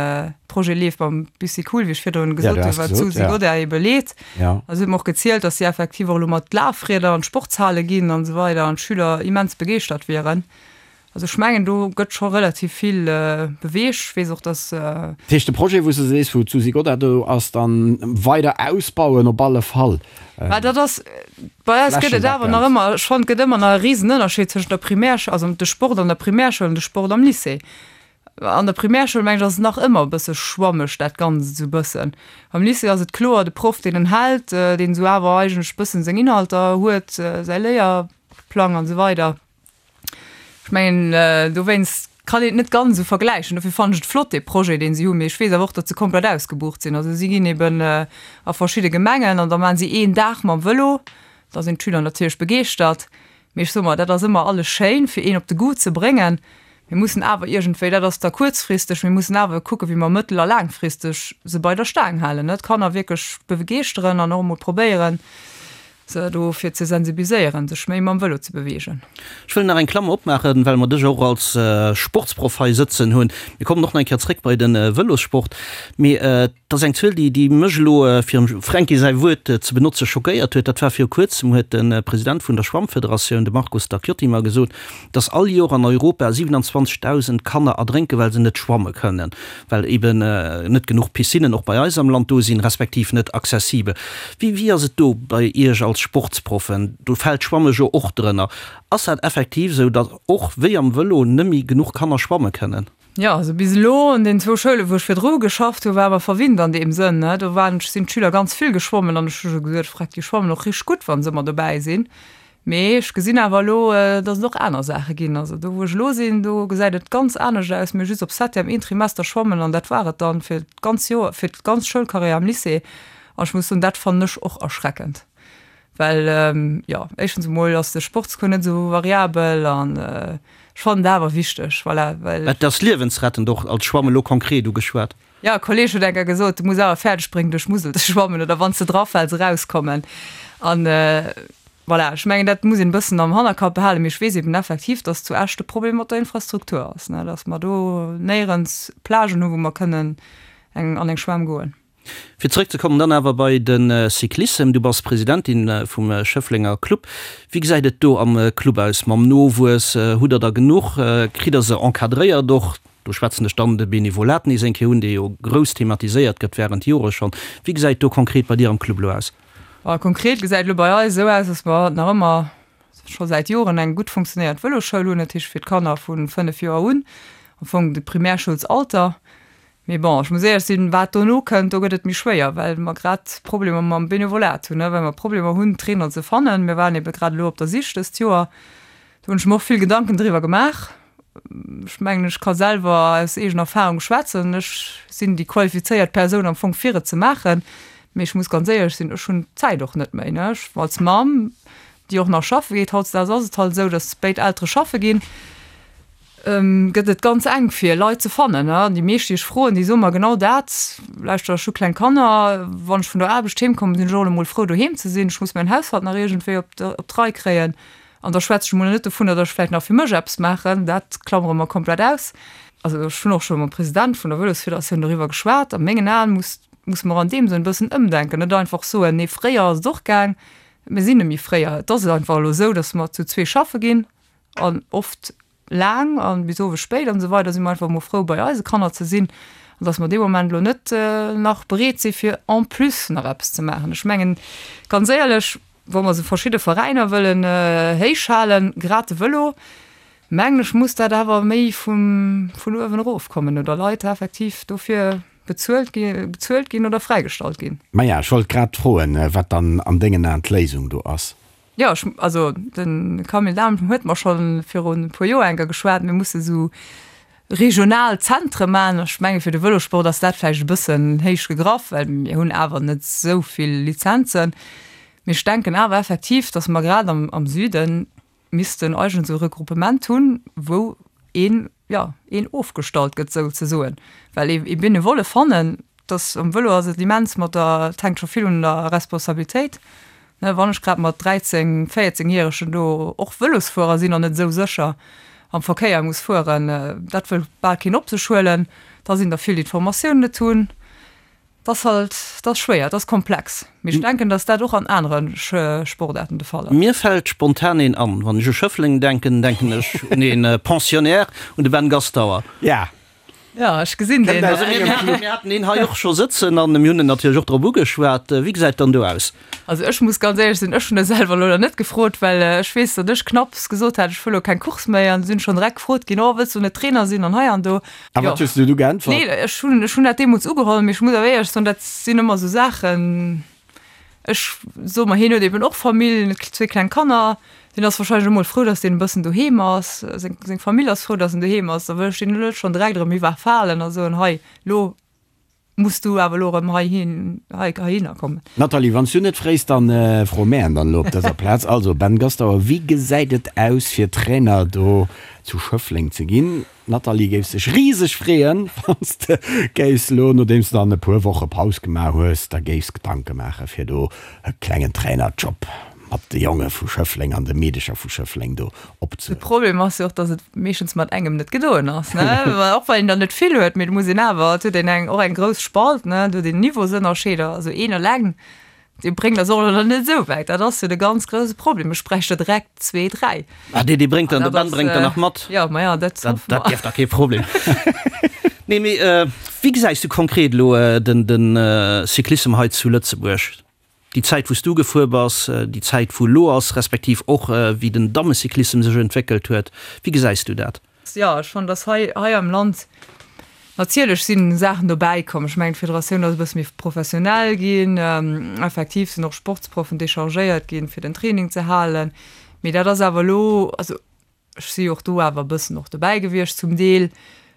Projet leeft mam Bicycool, wéi ech virdrun gesot hunn, wat d'Susi Godart ebe leet. Ja. A si huet mer och gezielt, dass si effektiv och elo mat Lafrieder an d'Sportshale ginn an esou weider an d'Schüler immens begeeschtert wieren. Also ech mengen, do gëtt scho relativ vill beweegt. Ech weess och, dass. Dat heescht, de Projet, wou s de sees, wou d'Susi Godart do ass, dann weider ausbauen op alle Fall. Mä dat ass, bei eis gëtt et awer nach ëmmer, ech fannen, et gëtt ëmmer nach e Risenënnerscheed tëschent der Primärschoul, also de Sport an der Primärschoul an de Sport am Lycée. An der Primärschoul, mengen ech, ass et nach ëmmer e bësse schwammeg dat Ganzt esou e bëssen. Am Lycée ass et kloer, de Proff, deen en hält, deen esou awer eigentlech e bëssen seng Inhalter huet, säi Léierplang an esou weider. Ech mengen, dowéinst kann een et net ganz esou vergläichen. Dofir fannen ech et flott, dee Projet, deen si hunn. Mee ech weess awer och, datt se komplett ausgebucht sinn. Also si ginn eben a verschidde Gemengen an da maachen si een Dag mam Vëlo. Da sinn d'Schüler natierlech begeeschtert. Mee ech soe mer, dat ass ëmmer alles schéin, fir een op de Goût ze bréngen. Mir mussen awer iergendwéi, dat ass da kuerzfristeg, mir mussen awer kucken, wéi mer mëttel a laangfristeg se bei der Staang halen, ne, d'Kanner wierklech begeeschteren an och emol probéieren, se dofir ze sensibiliséieren, sech méi mam Vëlo ze beweegen. Ech wëll nach eng Klammer opmaachen, well mer dech och als Sportsproff hei sëtzen hunn. Mir kommen och nach eng Kéier zréck bei de Vëlossport. Mee Et ass eng Zuel, déi, déi mech elo, fir dem Fränki säi Wuert ze benotze, schockéiert huet. Dat war viru Kuerzem, huet de President vun der Schwammfederatioun, de Marco Stacchiotti, mer gesot, dass all Joer an Europa 27.000 Kanner erdrénken, well se net schwamme kënnen, well eben net genuch Piscinnen och bei eis am Land do sinn, respektiv net accessibel. Wéi, wéi ass et do bei Iech als Sportsproffen? Do fält d'Schwamme jo och drënner. Ass dat effektiv esou, datt och wéi am Vëlo nëmme genuch Kanner schwamme kënnen? Jo, also bis elo an den zwou Schoulen, wou ech virdru geschafft hu, war mer verwinnt an deem Sënn, ne. Do waren, sinn d'Schüler ganz vill geschwommen an ech hu scho gesot, Freck, déi schwammen och richteg gutt, wa se ëmmer dobäi sinn. Mee ech gesinn awer elo, datt et och aner Saache ginn. Also do, wou ech elo sinn, do gesäit et ganz anescht aus. Mir hu just op Septième een Trimester schwammen an dat war et dann fir d'ganz Joer, fir d'ganz Schoulcarrière am Lycée. An ech muss soen, dat fannen ech och erschreckend. Well, jo, éischtens emol ass de Sportscours net esou variabel an ech fannen et awer wichteg, voilà, well. Et ass liewensrettend, och als Schwamm elo konkret ugeschwat. Jo, e Kolleeg huet eng Kéier gesot, du muss awer fäerdeg bréngen duerch d'Musel ze schwammen oder wann s de drafäls erauskommen. An voilà, ech mengen dat muss een e bëssen am Hannerkapp behalen. Mee ech weess eben effektiv, datt zu Esch de Problem mat der Infrastruktur ass, ne, datt mer do néierens Plagen hu wou mer kënnen eng an eng Schwämm goen. Fir zeréckzekommen dann awer bei de Cyclissem, du bass Presidentin vum Schëfflenger Club. Wéi gesäit et do am Club aus mam Nowuess? Hutt der der genuch? Kritt der se encadréiert och? Do schwätzen ech dann de Benevolat nees eng Kéier un, dee jo grouss thematiséiert gëtt wärend Jore schonn. Wéi gesäit do konkret bei dir am Club elo aus? Konkret gesäit elo bei eis esou aus, dass mer nach ëmmer scho säit Joren eng gutt funktionéierend Vëlosschoul hunn, dat heescht fir d'Kanner vu 5 Joer un, am Fong de Primärschoulsalter. Mee bon, ech muss éierlech sinn, wat dono kënnt, do gëtt et méi schwéier, well mer grad Problemer mam Benevolat hunn, well mer Problemer hunn, Trainer ze fannen. Mir waren ebe grad elo op der Sich dëst Joer. Do hunn ech mer och vill Gedanken driwwer gemaach. Ech mengen, ech ka selwer aus eegener Erfahrung schwätzen, ech sinn déi qualifizéiert Persoun am Fong fir et ze maachen. Mee ech muss ganz éierlech sinn, ech hunn d'Zäit och net méi, ne. Ech als Mamm, déi och nach schaffe geet, hautdesdaags ass et halt esou, datt béid Eltere schaffe ginn. Gëtt et ganz enk fir Leit ze fannen. An déi meescht déi ech froen, déi soe mer genau dat, Lauschter, ech hu kleng Kanner, wann ech vun der Aarbecht heem kommen, sinn ech och emol frou doheem ze sinn, ech muss mäin Haushalt nach iergendwéi op d'Rei kréien. An da schwätze ech emol net dovunner, datt ech vläicht nach fir mech eppes maachen, dat klammere mer komplett aus. Also ech hunn och scho mam President vun der Vëlosfederatioun doriwwer geschwat. A mengen Aen muss, musse mer an deem Sënn e bëssen ëmdenken, net einfach soen, nee fréier ass et och gaang, mir sinn net méi fréier. Et ass einfach elo esou, datt mer zu zwee schaffe ginn an oft laang an bis owes spéit an esou weider si mer einfach emol frou bei eise Kanner ze sinn an dass mer dee Moment elo net nach bereet si fir en plus nach eppes ze maachen. Ech mengen ganz éierlech, wa mer esou verschidde Veräiner wëllen héich halen, grad de Vëlo, mengen ech muss dat awer méi vum vun uewen erof kommen oder Leit effektiv dofir bezuelt gi bezuelt ginn oder fräigestallt ginn. Maja, ech wollt grad froen, wat dann an dengen Aen d'Léisung do ass. Jo, ech, also de Camille Dahm huet mer scho virun e puer Joer eng Kéier geschwat, mir musse sou regional Zentre maachen. Ech menge fir de Vëlosport ass dat vläicht e bëssen héich gegraff, well mir hunn awer net esou vill Lizenzen. Mee ech denken awer effektiv, datt mer grad am, am Süde missten eigentlech esou e Regruppement hunn, wou een, jo, een ofgestallt gëtt souzesoen. Well ee, ee Benevolle fannen, dass um Vëlo ass et immens mat der, et hänkt scho vill un der Responsabilitéit, ne, wann ech grad mat 13, 14 järegen do och Vëlosfuerer sinn an net esou sécher am Verkéier muss fueren, dat wëll bal keen op sech huelen, da sinn der vill déi d'Formatioun net hunn. Et ass halt, et ass schwéier, et ass komplex, mee ech denken, dass dat och an anere Sportaarten de Fall ass. Mir fält spontan een an, wann ech u Schëffleng denken, denken ech un ee Pensionnaire, un de Ben Gastauer. Ja, Ja, ech gesinn deen. Also mir haten, mir haten een hei och scho sëtzen an mir hunn en natierlech och drop ugeschwat. Wéi gesäit dann do aus? Also ech muss ganz éierlech sinn, ech hunn e selwer elo nach net gefrot, well ech weess, datt ech knapps gesot hat, ech wëll elo keng Course méi an sinn schonn direkt gefrot ginn, oh wëlls du net Trainer sinn an hei an do. A wat hues du du geäntwert? Nee, ech hunn, ech hunn dat deemools ugeholl, mee ech muss awer éierlech soen, dat sinn ëmmer esou Saachen, Ech soe mer, hien huet eben och Famill, zwee kleng Kanner. Deen ass wahrscheinlech emol frou, datt deen e bëssen doheem ass. Seng, seng Famill ass frou, datt en doheem ass. Da wëll ech deen elo net schonn direkt erëm iwwerfalen a soen, hei, lo muss du awer elo erëm heihin, hei, heihinner kommen. Nathalie, wann s du net fréis, dann froe mär en dann elo op dëser Plaz. Also, Ben Gastauer, wéi gesäit et aus, fir Trainer do zu Schëffleng ze ginn? D'Nathalie géif sech riseg freeën, wann s de géifs elo, nodeems de dann e puer Woche Paus gemaach hues, der géifs Gedanke maache fir do e klengen Trainerjob mat de Jonge vu Schëffleng an de Meedecher vu Schëffleng do De opzehuelen. Problem ass jo och, datt et meeschtens mat engem net gedoen ass, ne? Och well een der net vill huet, mee et muss een awer, et huet een eng, och eng grouss Spalt, ne? Et huet een Niveausënnerscheeder, also een eleng Dee bréngt eis och elo net esou wäit. Dat ass jo de ganz grouse Problem. Ech bräicht der direkt zwee, dräi. Ah, dee, dee bréngt dann, de Ben bréngt der nach mat. Jo, ma ja, dat hoffe mer. Dat dierft da kee Problem. Nee, mee wéi gesäis du konkret elo den, den Cyclissem hei zu Lëtzebuerg? Déi Zäit, wou s du gefuer bass, déi Zäit, wou elo ass, respektiv och wéi den Dammecyclissem sech entwéckelt huet. Wéi gesäis du dat? Jo, ech fannen, dass hei, hei am Land natierlech si Saachen dobäi komm. Ech mengen, d'Federatioun ass e bësse méi professionell ginn. Effektiv sinn och Sportsproffen dechargéiert ginn, fir den Training ze halen. Mee dat ass awer elo, also ech si jo och do awer e bëssen och dobäi gewiescht zum Deel.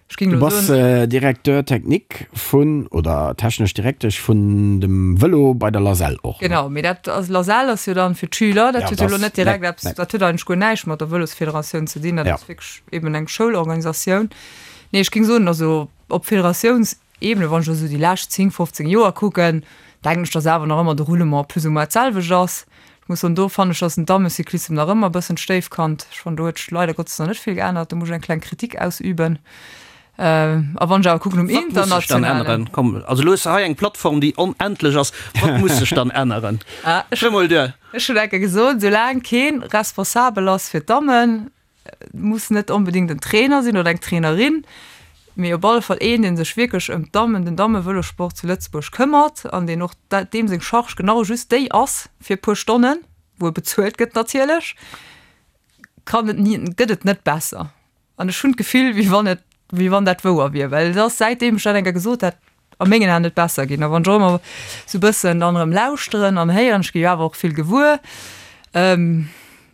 Ech géing elo soen. Du bass Directeur technique vun, oder technesch Direktesch vun dem Vëlo bei der LASEL och, ne? Genau, mee dat ass, LASEL ass jo dann fir d'Schüler, dat huet jo elo net direkt eppes, dat huet eigentlech guer näischt mat der Vëlosfederatioun ze dinn, dat ass wierklech eben eng Schoulorganisatioun. Nee, ech géing soen, also op Federatiounsebene, wann ech elo esou déi lescht 10, 15 Joer kucken, denken ech, datt awer nach ëmmer de Roulement plus ou moins d'selwecht ass. Ech muss soen, do fannen ech, ass den Dammecyclissem nach ëmmer e bëssen d'Stéifkand. Ech fannen, do huet sech leider Gottes nach net vill geännert. Do muss ech eng kleng Kritik ausüben. A wann ech awer kucken um Wat muss sech dann internationalen. änneren? Komm, also elo hues de hei eng Plattform, déi onendlech ass. Wat muss sech dann änneren? Ah, ech Hör mol duer. Ech hunn enke gesot, soulaang kee responsabel ass fir d'Dammen, muss net onbedéngt en Trainer sinn oder eng Trainerin, mee op alle Fall een, dee sech wierklech ëm d'Dammen, den Dammevëlossport zu Lëtzebuerg këmmert an deen och deem seng Charge genau just déi ass fir e puer Stonnen, wou e bezuelt gëtt natierlech, kann et ni, gëtt et net besser. An ech hunn d'Gefill, wéi wann et, wéi wann dat wouer wier, well et ass, säitdeem ech dat eng Kéier gesot hat, a mengen Aen net besser ginn. A wann ech och ëmmer esou e bëssen dann erëm lauschteren an héieren, ech gi jo awer och vill gewuer.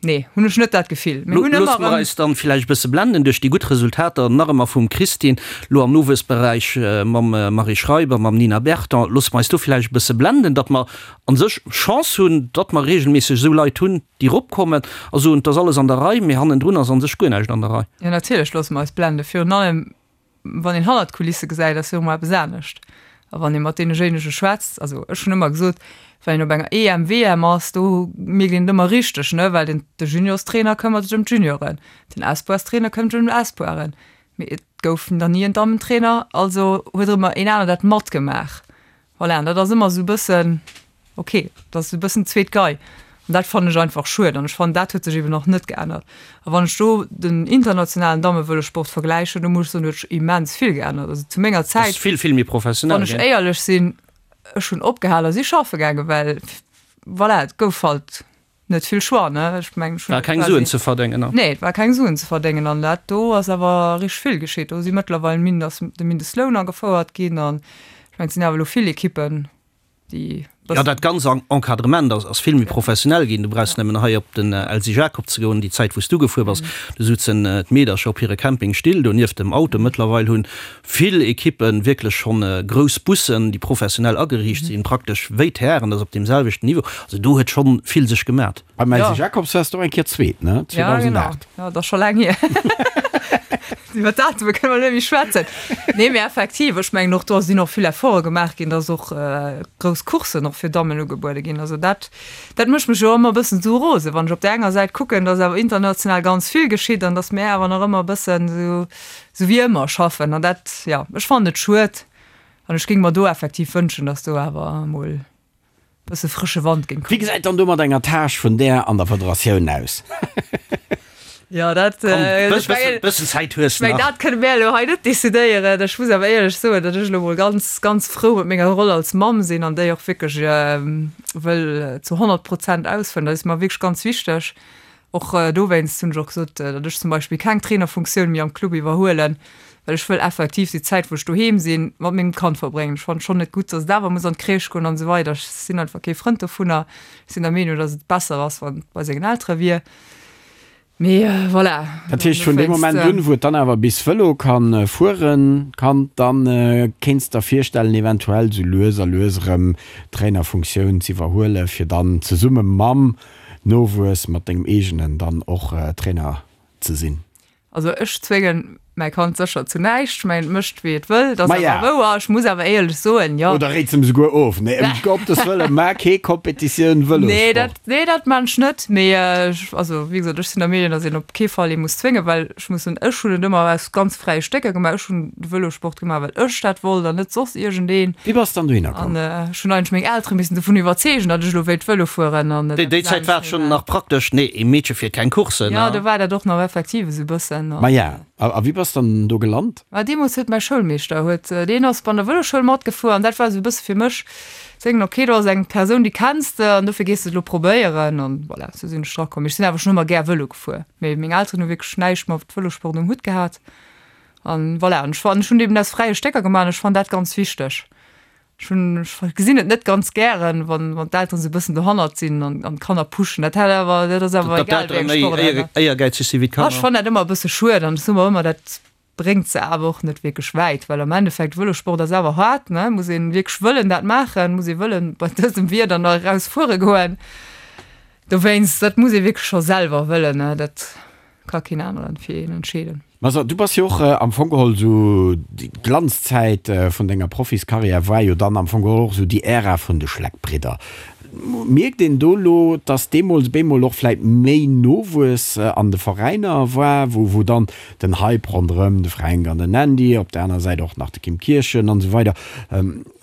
Nee, hunn ech net dat Gefill. Mir hunn ëmmer Loosse mer erëm. eis dann villäicht e bësse blenden duerch déi gutt Resultater nach ëmmer vum Christine, lo am Nowuessberäich mam Marie Schreiber, mam Nina Berton. Loosse mer eis do villäicht e bësse blenden, datt mer an sech Chance hunn, datt mer regelméisseg esou Leit hunn, déi eropkommen a soen, et ass alles an der Rei, mee hannendrun ass an sech guer näischt an der Rei. Jo, natierlech loosse mer eis blenden. Virun allem wann een hannert d'Kulisse gesäit, ass jo ëmmer eppes anescht. A wann ee mat deenejéinege schwätzt, also ech hunn ëmmer gesot, wann een op enger EM, WM ass, do mierkt een et ëmmer richteg, ne, well den de Juniorstrainer këmmert sech ëm d'Junioren, den Espoirstrainer këmmert sech ëm d'Espoiren, mee et gouf nach ni en Dammentrainer, also huet ëmmer een aner dat matgemaach. Voilà, an dat ass ëmmer esou e bëssen, ok, dat ass e bëssen zweet Gei. An dat fannen ech einfach schued an ech fannen, dat huet sech eben och net geännert. A wann ech do den internationalen Dammevëlossport vergläichen, do muss ech soen, do huet sech immens vill geännert. Also zu menger Zäit, vill, vill méi professionell wann ech éierlech sinn, ech hunn opgehal a si schaffe gaangen, well voilà, et gouf halt net vill Choix, ne? Ech mengen, ech hunn War keng Suen ze verdéngen, ne? Nee, et war keng Suen ze verdéngen an dat do ass awer richteg vill geschitt. Do si mëttlerweil min ass de Mindestloun agefouert ginn an ech mengen, et sinn awer elo vill Ekippen, déi Jo, dat ganz Encadrement ass ass vill méi professionell ginn. Du brauchs nëmmen hei op den Elsy Jacob ze goen, déi Zäit wou s du gefuer bass, do souzen d'Meedercher op hire Campingstill do nieft dem Auto. Mëttlerweil hunn vill Ekippen wierklech schonn grouss Bussen, déi professionell ageriicht sinn, praktesch wéi d'Hären, dat ass op deem selwechten Niveau. Also do huet schonn vill sech gemat. Beim Elsy Jacobs waars de och eng Kéier Zweet, ne? 2008. Ja, genau. Ja, dat ass scho laang hier. Iwwer Datume kënne mer net méi schwätzen. Nee, mee effektiv, ech mengen och do sinn och vill Efforte gemaach ginn, dass och grouss Courssen och fir Dammen ugebuede ginn. Also dat, dat mécht mech jo ëmmer e bëssen esou rosen, wann ech op där enger Säit kucken, dass awer international ganz vill geschitt an dass mär awer nach ëmmer e bëssen esou, Sou wéi ëmmer schaffen an dat, jo, ech fannen et schued an ech géing mer do effektiv wënschen, dass do awer emol e bësse frësche Wand géing Wéi kommen. gesäit dann do mat enger Tâche vun där an der Federatioun aus? Jo, dat, Komm, ech mengen, bëssen Zäit hues ech mengen, nach. dat kënne mär elo hei net decidéieren. Ech muss awer éierlech soen, datt ech elo emol ganz, ganz frou mat menger Roll als Mamm sinn an déi och wierklech wëll zu 100 Prozent ausfëllen. Dat ass mer wierklech ganz wichteg. Och dowéinst hunn ech och gesot, datt ech zum Beispill keng Trainerfunktioun méi am Club iwwerhuelen, well ech wëll effektiv déi Zäit, wou ech doheem sinn, mat mengem Kand verbréngen. Ech fannen et schonn net gutt, datt et awer muss an d'Crèche goen an esou weider. Ech sinn einfach kee Frënd dovunner. Ech sinn der Meenung, datt et besser ass, wann et bei sengen Eltere wier. Mee voilà. Dat heescht, vun deem Moment un, wou et dann awer bis Vëlo ka fueren, Kand, da kéints der virstellen, eventuell esou lues a lues erëm d'Trainerfunktioun z'iwwerhuelen, fir dann zesumme mam Nowuess mat dengem eegenen dann och Trainer ze sinn? Also ech zwéngen mäi Kand sécher zu näischt. Ech mengen, et mécht wéi et wëll, dat ass Maja. awer wouer. Ech muss awer éierlech soen, jo. Oder réits em souguer of? Nee, ëm Gottes Wëllen, maach kee Kompetitioun Nee, Vëlossport. dat, nee, dat maan ech net. Mee ech, also wéi gesot, ech sinn der Meenung, datt een op kee Fall ee muss zwéngen, well ech muss soen, ech hunn et ëmmer aus ganz fräie Stécker gemaach. Ech hunn de Vëlossport gemaach, well ech dat wollt an net soss iergendeen. Wéi bass dann dohinner komm? An ech hunn eigentlech meng Eltere missen dovun iwwerzeegen, datt ech elo wéilt Vëlo fueren an Déi eppes Zäit war et anescht schonn nach praktesch, nee, ee Meedche fiert keng Courssen. Jo, do war dat och nach effektiv esou e bëssen. Maja, a wéi bass dann do gelant? Ma deemools huet mäi Schoulmeeschter, huet, deen ass bei der Vëloschoul matgefuer an dat war esou e bësse fir mech zéngen, ok, do ass eng Persoun, déi kenns de an dofir gees de et elo probéieren an voilà, esou sinn ech drakomm. Mee ech sinn awer schonn ëmmer gär Vëlo gefuer, mee meng Elteren hu wierklech näischt mat Vëlossport um Hutt gehat an voilà. An ech fannen, ech hunn et eben aus fräie Stécker gemaach an ech fannen dat ganz wichteg. Ech hunn, ech gesinn et net ganz gären, wann, wann d'Elteren esou e bëssen dohannert sinn an, an d'Kanner pushen. Dat hat awer, dat ass awer Datt egal d'Eltere wéi eng méi Sportaart, éier, ne? éiergäizeg si wéi Ah, ech d'Kanner. fannen dat ëmmer e bësse schued an ech soe mer ëmmer, dat bréngt se awer och net wierklech wäit, well am Endeffekt, Vëlossport ass awer haart, ne? Muss een wierklech wëllen dat maachen, muss ee wëllen bei dësem Wieder nach eraus fuere goen. Dowéinst, dat muss ee wierklech scho selwer wëllen, ne? Dat ka keen aneren fir een entscheeden. Ma so, du bass jo och am Fong geholl esou, déi Glanzzäit vun denger Profiskarriär war jo dann am Fong geholl och esou déi Ära vun de Schleck-Bridder. Mierkt een do elo, dass deemools bemol och vläit méi Nowuess an de Veräiner war, wou wou dann den Hype ronderëm de Fränk an den Andy, op der aner Säit och nach de Kim Kirchen an esou weider,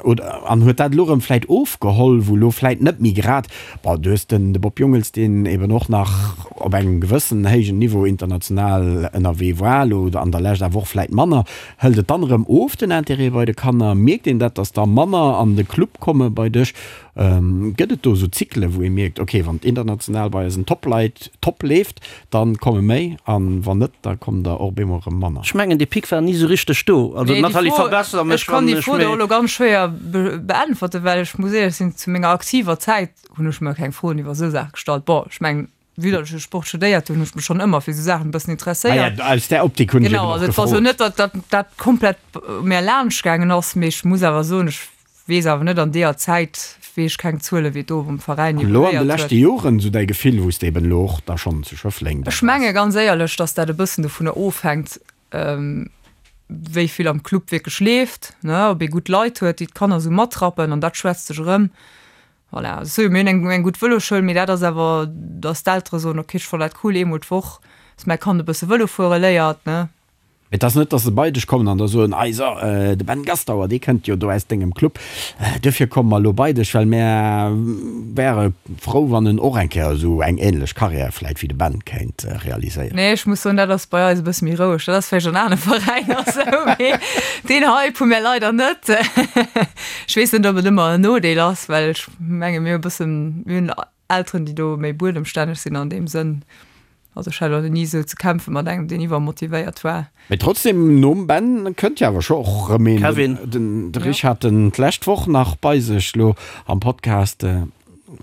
Oder, an huet dat elo erëm vläit ofgeholl, wou elo vläit net méi grad, bon, du hues den de Bob Jungels, deen eben och nach op engem gewëssen héijen Niveau international ënnerwee war, elo an der Lescht awer och vläit manner. Hëlt et dann erëm of, den Intérêt bei de Kanner? Mierkt een dat, datt der manner an de Club komme bei dech? Gëtt et do esou Zykle wou ee mierkt, ok, wann et international bei eisen Top-Leit top leeft, dann komme méi, an wann net, da kommen der och op eemol erëm manner? Ech mengen, dee Pic war ni esou richteg do. Also Nee, déi Nathalie, Fro, verbesser ech mech, kann wann déi ech Fro do méi. elo ganz schwéier beäntwerten, well ech muss éierlech sinn, zu menger aktiver Zäit hunn ech mer keng Froen iwwer esou Saache gestallt. Bon, ech mengen. Vue datt ech jo Sport studéiert hunn, hunn ech mech schonn ëmmer fir esou Saachen e bëssen interesséiert. Ah ja, aus där Optik hunn ech eben Genau, och also et war esou gefrot. net, datt dat dat komplett u mär laanscht gaangen ass, mee ech muss awer soen, ech weess awer net an deeër Zäit, weess ech keng Zuele wéi et do am Veräin An elo an de evoluéiert huet. leschte Joren, esou däi Gefill, wou s de eben elo och da schonn zu Schëffleng da Ech waars? menge ganz éierlech, datt dat e bëssen dovunner ofhänkt, wéi vill am Club wierklech leeft, ne, ob ee gutt Leit huet, déi d'Kanner esou matrappen an dat schwätzt sech erëm. Voilà, also mir hunn eng, eng gutt Vëloschoul, mee dat ass awer, dass d'Eltere soen, ok, ech fannen dat cool, eemol d'Woch, dass mäi Kand e bësse Vëlo fuere léiert, ne. Et ass net, dass se bei dech kommen an da soen, Ei so, de Ben Gastauer, dee kënnt jo do aus dengem Club, duerfir komme mer elo bei dech, well mär wäre frou, wann en och eng Kéier esou eng ähnlech Karriär vläit wéi de Ben kéint realiséieren. Nee, ech muss soen, dat ass bei eis e bësse méi roueg. Dat ass vläicht an anere Veräiner esou, mee deen Hype hu mär leider net. Ech weess net, ob et ëmmer en Nodeel ass, well ech menge mir hu e bëssen, mir hunn Elteren, déi do méi buedemstänneg sinn an deem Sënn. Also ech hat elo ni esou ze kämpfe mat engem, deen iwwermotivéiert war. Mee trotzdem, nom Ben kënnt jo awer scho och erëm een. Kevin. Den de Rich hat en d'lescht Woch nach bei sech lo am Podcast.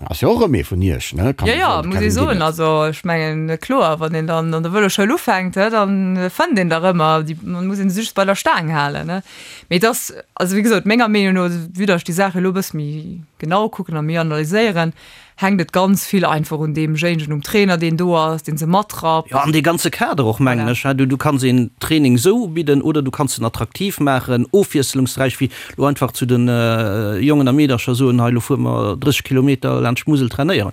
Ass jo och erëm ee vun iech, ne? Kann Jo, ee jo, soen, de muss ee Kevin soen. Guinness. Also ech mengen, kloer, wann een dann an der Vëloschoul ufänkt, he, dann fënnt een der ëmmer. Déi muss een just bei der Staang halen, ne? Mee et ass, also wéi gesot, menger Meenung no, vue datt ech déi Saach elo e bësse méi genau kucken a méi analyséieren, hänkt et ganz vill einfach un deemjéinegen, um Trainer, deen do ass, deen se matrappt. Jo, an dee ganze Kader och, mengen Voilà. ech. Du, du kanns een Training esou ubidden oder du kanns en attraktiv maachen, ofwiesselungsräich, wéi elo einfach zu de Jongen a Meedercher soen, hei, elo fuere mer 30 Kilometer laanscht d'Musel trainéieren.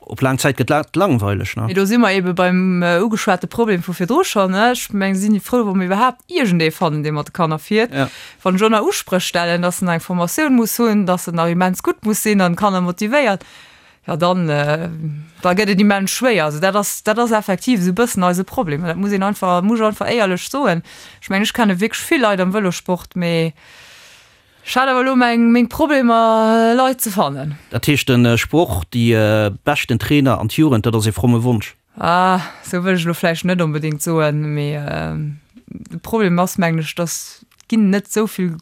Op laang Zäit gëtt dat langweileg, ne? Mee do si mer eebe beim ugeschwate Problem vu virdru schonn, ne? Ech mengen, si frou, wa mer iwwerhaapt iergendee fannen, dee mat de Kanner fiert. Ja. Wann ech och nach Uspréch stellen, dass en nach eng Formatioun muss hunn, dass en nach immens gutt muss sinn an d'Kanner motivéiert, jo dann, da gëtt et immens schwéier. Also dat ass, dat ass effektiv esou e bëssen eise Problem. An dat muss een einfach, muss ech einfach éierlech soen. Ech mengen, ech kenne wierklech vill Leit am Vëlossport, mee Ech hat awer elo meng meng Problemer Leit ze fannen. Dat heescht den Sproch déi beschten Trainer an d'Jugend, dat ass ee fromme Wonsch? Ah, sou wëll ech elo vläicht net onbedéngt soen, mee de Problem ass mengen ech, dass et ginn net sou vill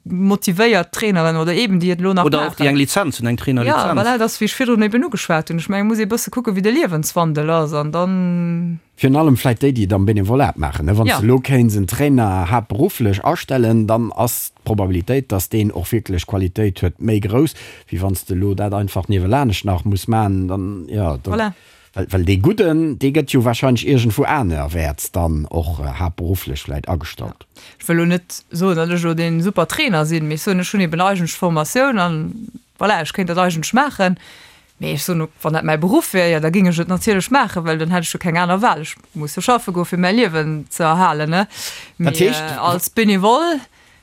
motivéiert Traineren oder eben déi et elo nach Oder och déi maachen. eng Lizenz hunn, eng Trainerlizenz. Ja, voilà, et ass wéi ech virdrun eben ugeschwat hunn. Ech mengen, et muss ee bësse kucke wéi de Liewenswandel ass an dann. Virun allem vläit déi, déi et am Benevolat maachen. Wann s de elo kéints en Trainer haaptberufflech astellen, dann ass d'Probabilitéit, dass deen och wierklech Qualitéit huet, méi grouss, wéi wann s de elo dat einfach niewelanescht nach muss maachen. Dann, jo, dann, well, well dee Gudden, dee gëtt jo wahrscheinlech iergendwou anerwäerts dann och haaptberufflech vläit agestallt. Ech wëll elo net soen, datt ech elo dee super Trainer sinn, mee ech soen, ech hunn eben eigentlech d'Formatioun an voilà, ech kéint dat eigentlech maachen. Mee ech soen, wann dat mäi Beruff wär, jo da géing ech et natierlech maachen, well dann hätt ech jo keng aner Wahl. Ech muss jo schaffe goen, fir mäi Liewen ze erhalen, ne? Dat Mee heescht. als Benevole,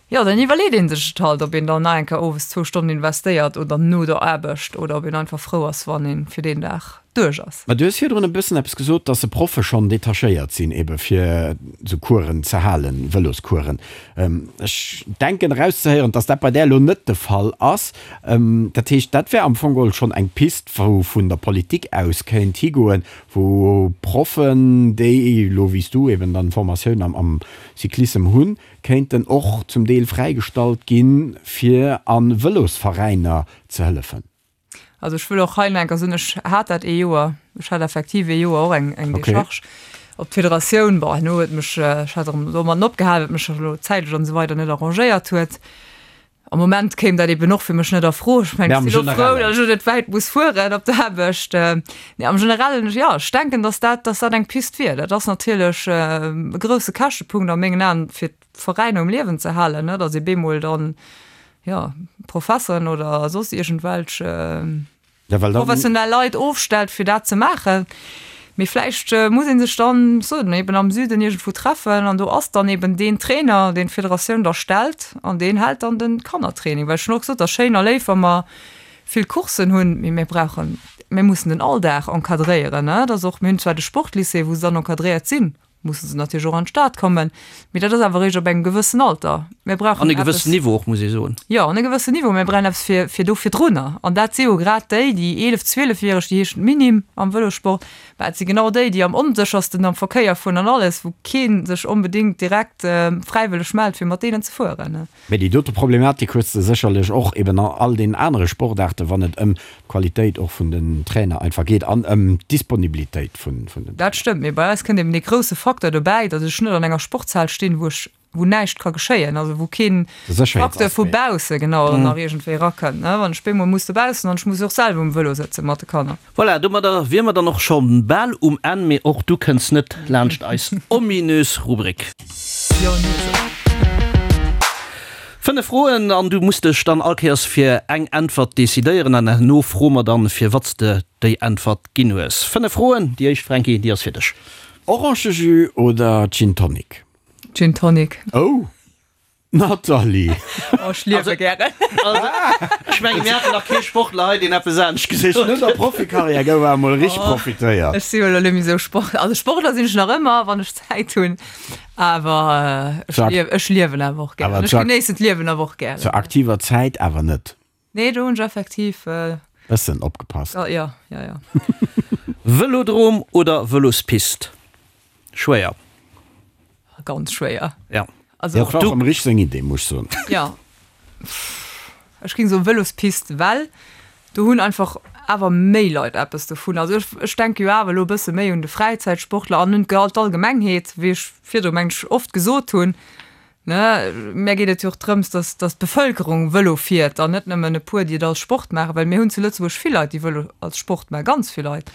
jo, dann iwwerleet ee sech et halt, ob een dann nach eng Kéier owes zwou Stonnen investéiert oder no der Aarbecht oder ob een einfach frou ass, wann ee fir deen Dag duerch ass. Mä du hues virdrun e bëssen eppes gesot, dass se Proffe schonn detachéiert sinn, ebe fir esou Coursen ze halen, Vëloscoursen. Ech denken erauszehéieren, dass dat bei där elo net de Fall ass. Dat heescht, dat wär am Fong geholl schonn eng Pist, wou vun der Politik aus kéint higoen, wou Proffen, déi elo wéi s du eben dann Formatioun am Cyclissem hunn, kéinten och zum Deel fräigestallt ginn, fir a Vëlosveräiner ze hëllefen. Also ech wëll och hei nach eng Kéier soen, ech hat dat ee Joer, ech hat effektiv ee Joer och eng, eng Decharge op d'Federatioun. Bon, herno huet mech, ech hat erëm domadden opgehal, well et mech elo zäitlech an esou weider net arrangéiert huet. Am Moment kéim dat eben och fir mech net a Fro. Ech mengen, ech sinn elo frou, datt ech elo net wäit muss fueren op d'Aarbecht. Nee, am Generellen, jo, ech denken, datt dat, datt dat eng Pist wier. Dat ass natierlech e grousse Käschtepunkt a mengen Aen, fir d'Veräiner um Liewen ze halen, ne, datt ee bemol dann, jo, Professeren oder soss iergendwelch professionell Leit ofstellt, fir dat ze maachen. Mee vläicht muss ee sech dann, ech soen, eben am Süden iergendwou treffen an do ass dann eben deen Trainer, deen d'Federatioun da stellt an deen hält dann de Kannertraining. Well ech hunn och gesot, et ass schéin a léif, wa mer vill Courssen hunn, mee mir brauchen, mir mussen den Alldag encadréieren. Et ass och, mir hunn zwar de Sportlycée, wou se dann encadréiert sinn, musse se natierlech och an d'Stad kommen, mee dat ass awer eréischt op engem gewëssen Alter. Mir brauchen An e gewëssen Niveau och, muss ee soen. Jo, an e gewëssen Niveau. Mir brauchen eppes fir, fir do virdrunner. An dat si jo grad déi, déi 11-, 12-Järeg, déi heeschen Minim am Vëlossport, mä et si genau déi, déi am onséchersten am Verkéier fueren an alles, wou kee sech onbedéngt direkt fräiwëlleg mellt, fir mat deenen ze fueren. Mä déi dote Problematik hues de sécherlech och eben an all deenen anere Sportaarten, wann et ëm d'Qualitéit och vun den Trainer einfach geet an ëm d'Disponibilitéit vun den Trainer. Dat stëmmt, mee bei eis kënnt eben dee grousse Facteur dobäi, datt ech net an enger Sportshal stinn, wou ech wou näischt ka geschéien, also wou keen Facteur vu bausse genau nach iergendwéi erakënnt, ne, wann ech bemol muss dobaussen an ech muss och selwer um Vëlo sëtze mat de Kanner. Voilà, domadder wier mer dann och scho bal um Enn, mee och du kënns net laanscht eis ominös Rubrik. Jo, nee, sou. 5 Froen an du muss dech dann all Kéiers fir eng Äntwert decidéieren an herno froe mer dann, fir wat s de déi Äntwert ginn hues. 5 Froen, déi éischt, Franky, déi ass fir dech. Orangejus oder Gin Tonic? Gin Tonic. Oh! Nathalie! Oh, ech liewe gären. Also, ech mengen, mir haten nach kee Sportler hei, deen eppes anescht gesot huet. No der Profikarriär gouf awer emol richteg profitéiert. Ech si jo elo net méi esou Sport, also Sportler sinn ech nach ëmmer, wann ech Zäit hunn, awer ech liewen, ech liewen awer och gären. Ech genéissen d'Liewen awer och gären. Zur aktiver Zäit awer net. Nee, do hunn ech effektiv. Bëssen opgepasst. Jo, jo, jo. Vëlodrom oder Vëlospist? Schwéier. Ganz schwéier. Ja. Also Dat war och dem Rich seng Idee, muss ech soen. Ja. Ech géing soen Vëlospist, well do hunn einfach awer méi Leit eppes dovun. Also ech, ech denke jo awer elo e bësse méi un de Fräizäitsportler an un d'Allgemengheet, wéi ech virdru meng ech oft gesot hunn. Ne, mär geet et jo och drëms, dass, dass d'Bevëlkerung Vëlo fiert an net nëmmen e puer, déi et als Sport maachen, well mir hunn zu Lëtzebuerg vill Leit, déi Vëlo als Sport maachen, ganz vill Leit.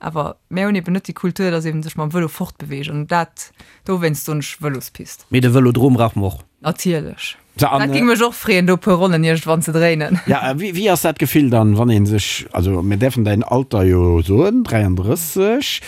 Awer mär hunn eben net déi Kultur, dass ee sech mam Vëlo fortbeweegt an dat, dowéinst soen ech Vëlospist. Mee de Vëlodrom brauche mer och. Natierlech. Dat géing mech och freeën, do e puer Ronnen iergendwann ze dréinen. Ja, a wéi, wéi ass dat Gefill dann, wann ee sech, also mir däerfen däin Alter jo soen, 33,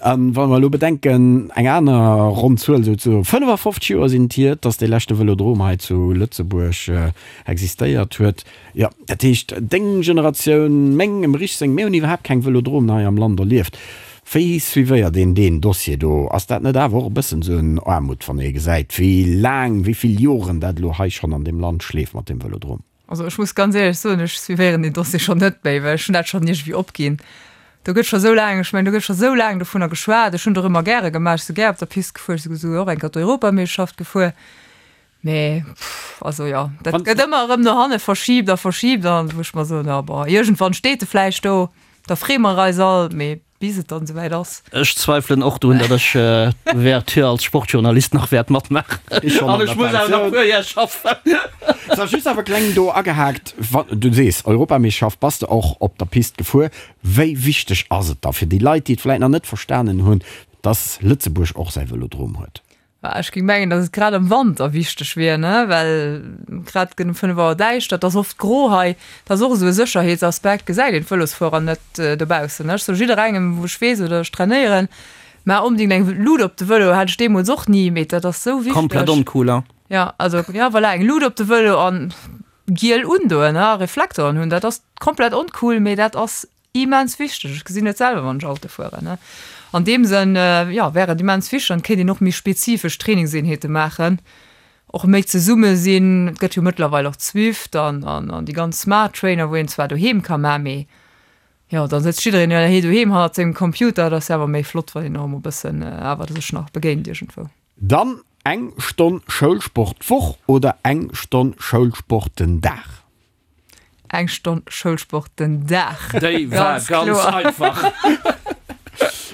A wa mer elo bedenken, eng aner ronn Zuel, esou zu 55 Joer sinn et hier, dass dee leschte Vëlodrom hei zu Lëtzebuerg existéiert huet. Jo, dat heescht, deng Generatioun, meng, dem Rich seng, mir hunn iwwerhaapt keng Vëlodromen hei am Land erlieft. Wéi suivéiert een deen Dossier do? Ass dat net awer och e bëssen esou en Aarmut, wann ee gesäit, wéi laang, wéi vill Joren dat elo hei schonn an deem Land schleeft mat deem Vëlodrom? Also ech muss ganz éierlech soen, ech suivéieren deen Dossier schonn net méi, well ech hunn dat schonn iergendwéi opginn. Do gëtt scho sou laang, ech mengen, do gëtt scho sou laang dovunner geschwat. Ech hunn et och ëmmer gäre gemaach, ech si gär op der Pist gefuer, ech si souguer och eng Kéier d'Europameeschterschaft gefuer. Mee also jo, dat gëtt ëmmer erëm no hanne verschiibt a verschiibt an wou ech mer soen, jo bon, iergendwann steet e vläicht do, da freeë mer eis all, mee Bis et dann esouwäit ass. Ech zweifelen och drun, datt ech d'Ouverture als Sportjournalist nach wäert matmaachen. An ech muss awer nach e puer Jar schaffen. So, just awer kleng do agehaakt, Wann du sees Europameeschterschaft, bass de och op der Pist gefuer. Wéi wichteg ass et da fir déi Leit, déi et vläit nach net verstanen hunn, datt Lëtzebuerg och säi Vëlodrom huet? Ech géing mengen, datt et grad am Wanter wichteg wier, ne, well grad gëtt um 5 Auer däischter, et ass oft gro hei. Dat ass och esou e Sécherheetsaspekt, gesäit een d'Vëlosfuerer net dobaussen. Ech soe jidderengem, wou ech weess oder ech trainéieren, maach onbedéngt eng Lut op de Vëlo. Hat ech deemools och ni, mee dat ass esou wichteg. Komplett oncool, hein? Jo, also, jo, voilà, eng Lut op de Vëlo an giel undoen, a Reflektoren hunn. Dat ass komplett oncool, mee dat ass Immens wichteg. Ech gesinn et selwer, wann ech Auto fueren. An deem Sënn, jo, wär et immens wichteg an et kéint een och méi spezifesch Trainingseenheete maachen, och méi zesumme sinn. Et gëtt jo mëttlerweil och Zwift an an déi ganz Smart Trainer, wou een zwar doheem ka maachen, mee jo, da sëtzt jiddereen jo doheem hannert sengem Computer. Et ass jo awer méi flott, wann een och emol e bëssen awer sech nach begéint iergendwou. Dann eng Stonn Schoulsport d'Woch oder eng Stonn Schoulsport den Dag? Eng Stonn Schoulsport den Dag. Déi war ganz einfach.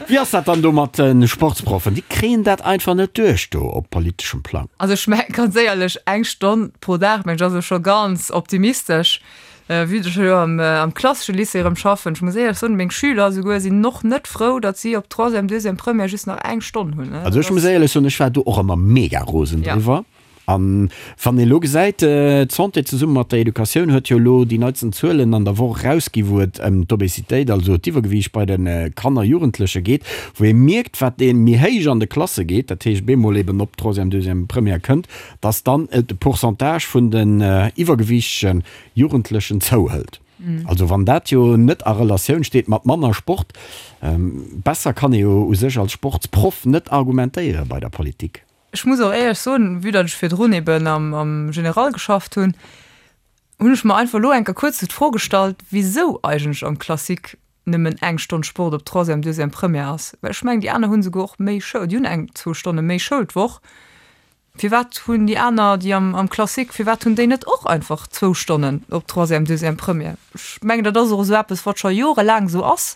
Wéi ass dat dann do mat de Sportsproffen? Déi kréien dat einfach net duerch do op politeschem Plang. Also ech mengen ganz éierlech, eng Stonn pro Dag, mengen ech, ass elo scho ganz optimistesch. Vue datt ech elo am klassesche Lycée erëm schaffen, ech muss éierlech soen, meng Schüler esouguer sinn och net frou, datt si op Troisième, Deuxième, Première just nach eng Stonn hunn. Also ech muss éierlech soen, ech war do och ëmmer mega rosen driwwer. An wann ee elo gesäit, d'Santé zesumme mat der Educatioun huet jo elo déi neitsten Zuelen an der Woch erausgi wou et ëm d'Obesitéit, also d'Iwwergewiicht bei de Kanner, Jugendleche geet, wou ee mierkt, wat ee méi héich an de Klasse geet, dat heescht bemol eben op Troisième, Deuxième, Première kënnt, datt dann de Pourcentage vun den iwwergewiichtege Jugendlechen zouhëlt. Also wann dat jo net a Relatioun steet mat manner Sport, besser kann ee jo u sech als Sportsproff net argumentéiere bei der Politik. Ech muss och éierlech soen, vue datt ech virdrun eben am, am General geschafft hunn, hunn ech mer einfach elo eng Kéier kuerz esou d'Fro gestallt, wisou eigentlech am Classique nëmmen eng Stonn Sport op Troisième, Deuxième, Première ass. Well ech mengen, déi aner hunn esouguer och méi Schoul, déi hunn eng, zwou Stonne méi Schoul d'Woch. Firwat hunn déi aner, déi am, am Classique, firwat hunn déi net och einfach zwou Stonnen op Troisième, Deuxième, Première? Ech mengen, dat ass och esou eppes, wat scho jorelaang esou ass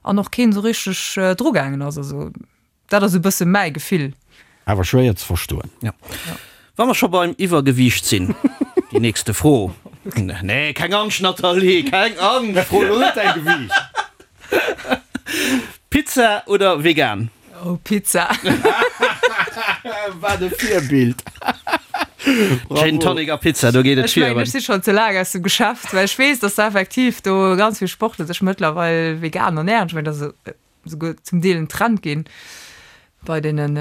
an och keen esou richteg drugaangen ass. Also Dat ass e bësse mäi Gefill. Awer schwéier ze verstoen. Ja. Wa mer scho beim Iwwergewiicht sinn, déi nächste Fro. Nee, keng Angscht, Nathalie, keng Angscht! Fro elo net däi Gewiicht. Pizza oder vegan? Oh, Pizza. Wat e Virbild! Gin Tonic a Pizza, do geet et Ech mengen, ech si schonn ze laang aus dem Geschäft, well ech weess, dass da effektiv do ganz vill Sportler sech mëttlerweil vegan ernären. Ech mengen, dat ass souguer zum Deel en Trend ginn bei deenen,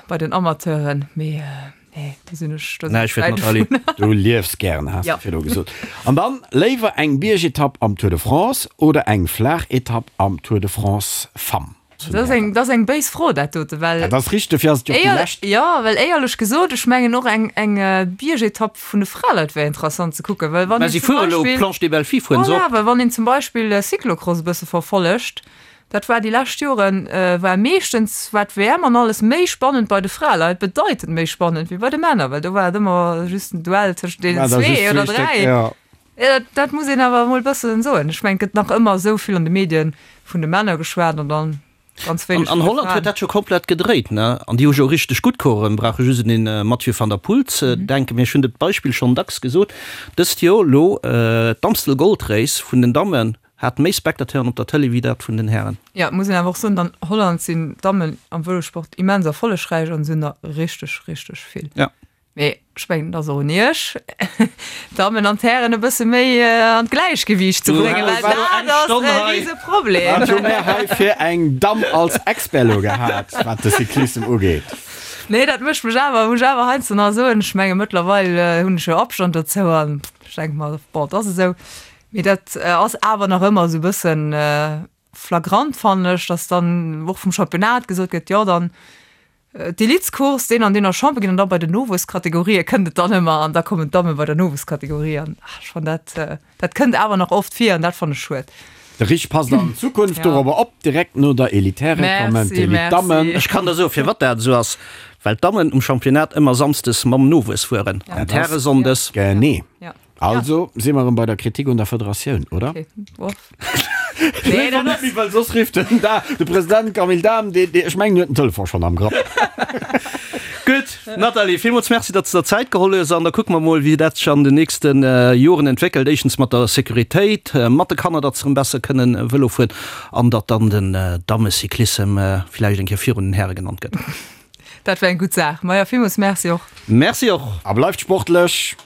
bei den Amateuren, mee nee, do sinn ech, do sinn ech wäit dovun. Du liefs gären, has de virdru gesot. An dann, léiwer eng Biergetapp am Tour de France oder eng Flaachetapp am Tour de France Femmes? Dat ass eng, dat ass eng béis Fro, dat dote, well. Dat ass richteg, dofir ass et jo och déi lescht. Jo, well éierlech gesot, ech mengen och eng, eng Biergetapp vun de Fraleit wär interessant ze kucken, well wann een zum Beispill. Mä si fuere elo Planche des Belles Filles, fueren se och. Voilà, well wann een zum Beispill Cyclocross e bësse verfollegt, Dat war déi lescht Joren, war meeschtens war d'WM an alles méi spannend bei de Fraleit, bedeitend méi spannend wéi bei de Männer, well do war et ëmmer just en Duell tëschent deenen zwee oder dräi. Jo, dat, dat muss een awer emol e bëssen soen. Ech mengen, et gëtt nach ëmmer esou vill an de Medien vun de Männer geschwat an dann ganz wéineg vun de Fraen. An Holland huet dat scho komplett gedréit, ne? An déi hu jo richteg gutt Coureuren, brauche just un den Mathieu van der Poel ze denken. Mee ech hunn dat Beispill schonn dacks gesot, dëst Joer elo d'Amstel Gold Race vun den Dammen, Hat méi Spectateuren op der Tëlee wéi dat vun den Hären. Jo, muss een awer och soen, an Holland sinn d'Dammen am Vëlosport immens erfollegräich an se hunn der richteg, richteg vill. Ja. Mee ech mengen, et ass och un iech, d'Dammen an d'Hären e bësse méi an d'Gläichgewiicht ze bréngen, well dat ass e Riseproblem. Wat hu mär hei fir eng Damm als Expert elo gehat, wat de Cyclissem ugeet? Nee, dat mécht mech awer, muss ech awer heiansdo nach soen. Ech menge mëttlerweil hunn ech jo Abstand dozou an ech denke mer, bon, et ass esou. Mee dat ass awer nach ëmmer esou e bëssen flagrant, fannen ech, dass dann och vum Championnat gesot gëtt, jo dann d'Elitecourse, deen an deen ass Champion ginn an da bei den Nowuesskategorië kënnt et dann ëmmer an da kommen d'Damme bei der Nowuesskategorie an ech fannen dat, dat kënnt awer nach oft vir an dat fannen ech schued. De Rich passt an Zukunft dorobber op, direkt no der Elitäre kommen d'Elite-Dammen. Ech kann der soen, firwat dat esou ass, well d'Dammen um Championnat ëmmer samsdes mam Nowuess fueren an d'Häre sonndes. Genee. Also si mer erëm bei der Kritik un der Federatioun, oder? Okay. Nee, dat ass. Well soss rifft den da de President Camille Dahm, dee, dee, ech mengen, huet den Telefon schonn am Grapp. Gutt, Nathalie, villmools Merci, datt s de der Zäit geholl hues. An da kucke mer mol, wéi dat sech an den nächste Joren entwéckelt. Éischtens mat der Sécuritéit, mat de Kanner, datt se erëm besser kënnen Vëlo fueren an datt dann den Dammecyclissem villäicht eng Kéier virun den Häre genannt gëtt. Dat wär eng gutt Saach. Maja, villmools Merci och. Merci och. A bleift sportlech!